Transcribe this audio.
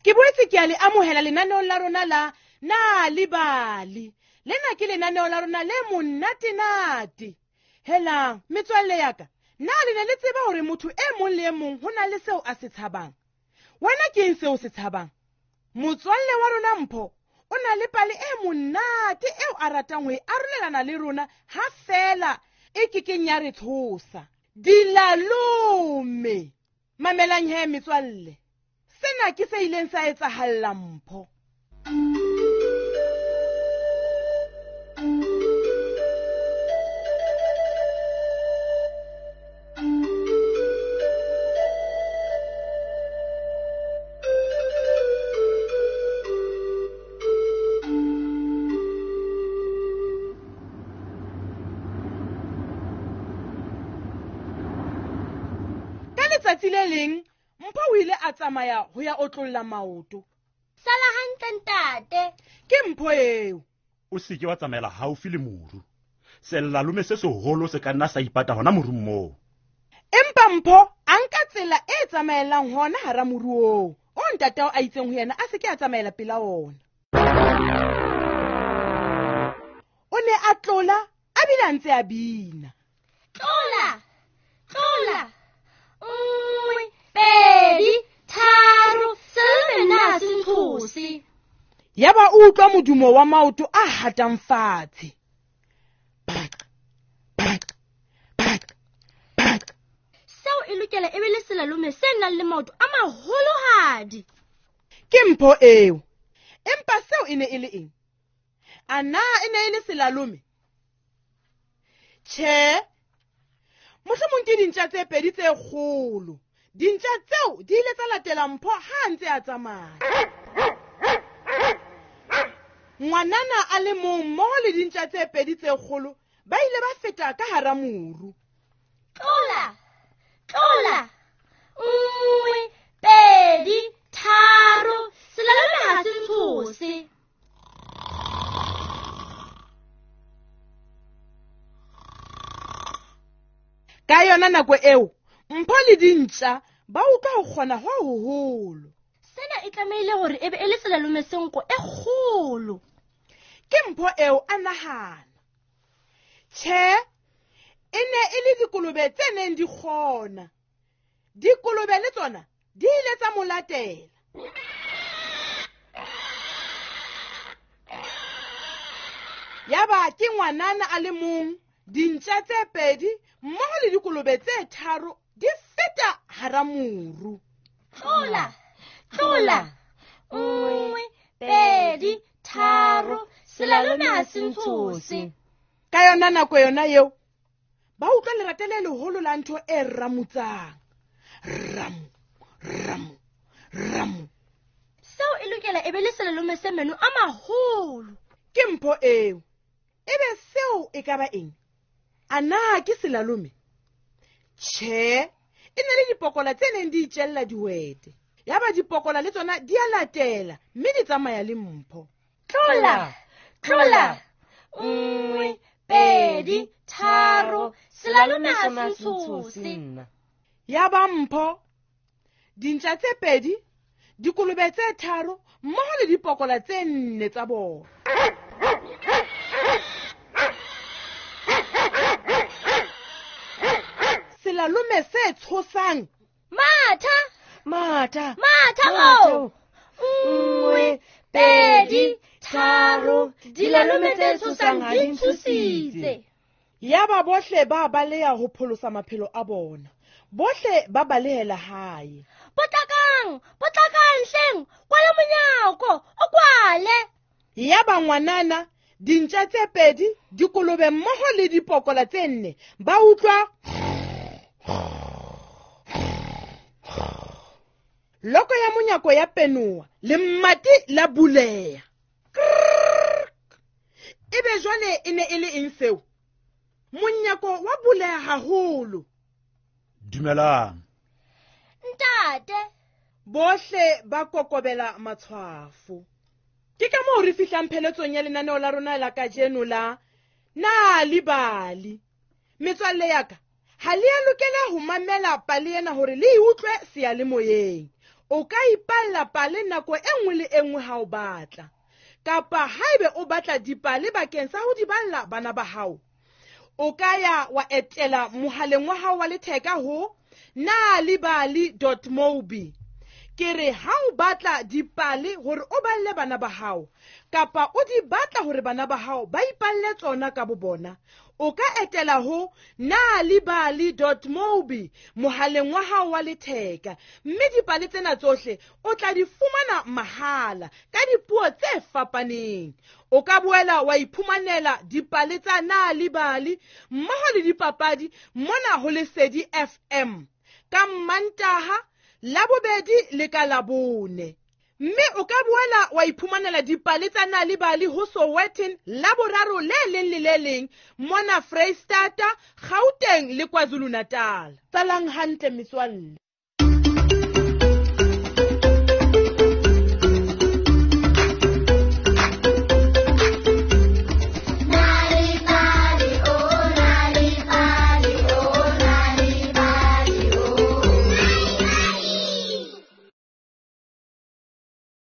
Ke boetse ke a le amohela lenaneong la rona la Nal'ibali. Lena ke lenaneo la rona le monate-nate. Helang, metswalle ya ka, na le ne le tseba hore motho e mong le e mong ho na le seo a se tshabang? Wena ke eng seo se tshabang? Motswalle wa rona Mpho o na le pale e monate eo a ratang ho e arolelana le rona ha feela e kekeng ya re tshosa. Dilalome! Mamelang he metswalle, sena ke se ileng sa etsahalla Mpho. Ka letsatsi le leng Mpho o ile a tsamaya ho ya otlolla maoto. Sala hantle ntate. Ke Mpho eo. O seke wa tsamaela haufi le moru. Selalome se seholo se ka nna sa ipata hona morung moo. Empa Mpho a nka tsela e tsamaelang hona hara moru oo, o ntatao a itseng ho yena a se ke a tsamaela pela ona. O ne a tlola a bile a ntse a bina. Tlola, tlola, 1, 2, 3, selalome nna se ntshose. Yaba o utlwa modumo wa maoto a hatang fatshe. Pak, pak, pak, pak. Seo e lokela e be le selalome se nang le maoto a maholohadi. Ke Mpho eo. Empa seo e ne e le eng? A na e ne e le selalome? Tjhe. Mohlomong ke dintja tse pedi tse kgolo. Dintja tseo di ile tsa latela Mpho ha a ntse a tsamaya. Ngwanana a le mong mmoho le dintja tse pedi tse kgolo ba ile ba feta ka hara moru. Tlola, tlola, 1, 2, 3, selalome ha se ntshose. Ka yona nako eo, Mpho le dintja ba utlwa ho kgona ho hoholo. Sena e tlamehile hore e be e le selalome se nko e kgolo. Ke Mpho eo a nahana. Tjhe, e ne e le dikolobe tse neng di kgona. Dikolobe le tsona di ile tsa mo latela. Yaba ke ngwanana a le mong, dintja tse pedi mmoho le dikolobe tse tharo di feta hara moru. Tlola, tlola, 1, 2, 3, selalome ha se ntshose. Ka yona nako yona eo, ba utlwa lerata le leholo la ntho e ramutsang. Ramu, ramu, ramu. Seo e lokela e be le selalome se meno a maholo. Ke Mpho eo. Ebe seo e ka ba eng? A na ke selalome? Tjhe, e ne le dipokola tse neng di itjella dihwete. Yaba dipokola le tsona di a latela mme di tsamaya le Mpho. Tlola, tlola, 1, 2, 3, selalome ha se ntshose. Yaba Mpho, dintja tse pedi, dikolobe tse tharo mmoho le dipokola tse nne tsa bona. Selalome se tshosang. Matha, matha, matha o. 1, 2, 3, dilalome tse tshosang ha di ntshositse. Yaba bohle ba baleha ho pholosa maphelo a bona. Bohle ba balehela hae. Potlakang, potlakang hleng, kwala monyako, o kwale. Yaba ngwanana, dintja tse pedi, dikolobe mmoho le dipokola tse nne, ba utlwa loko ya monyako ya penoa, lemati la buleha. Ebe jwale e ne e le eng seo? Monyako wa buleha haholo. Dumelang. Ntate. Bohle ba kokobela matshwafo. Ke ka moo re fihlang pheletsong ya lenaneo la rona la kajeno la Nal'ibali. Metswalle ya ka, ha le a lokela ho mamela pale ena hore le e utlwe seyalemoyeng. O ka ipalla pale nako e nngwe le e nngwe ha o batla. Kapa haebe o batla dipale bakeng sa ho di balla bana ba hao, o ka ya wa etela mohaleng wa hao wa letheka ho nalibali.mobi. Ke re ha o batla dipale hore o balle bana ba hao, kapa o di batla hore bana ba hao ba ipalle tsona ka bo bona, o ka etela ho nalibali.mobi mohaleng wa hao wa letheka, mme dipale tsena tsohle o tla di fumana mahala ka dipuo tse fapaneng. O ka boela wa iphumanela dipale tsa Nalibali mmoho le dipapadi mona ho Lesedi FM ka Mmantaha, Labobedi le ka Labone. Mme o ka boela wa iphumanela dipale tsa Nalibali ho Sowetan Laboraro le leng le le leng mona Freistata, Gauteng le KwaZulu-Natal. Tsalang hantle metswalle.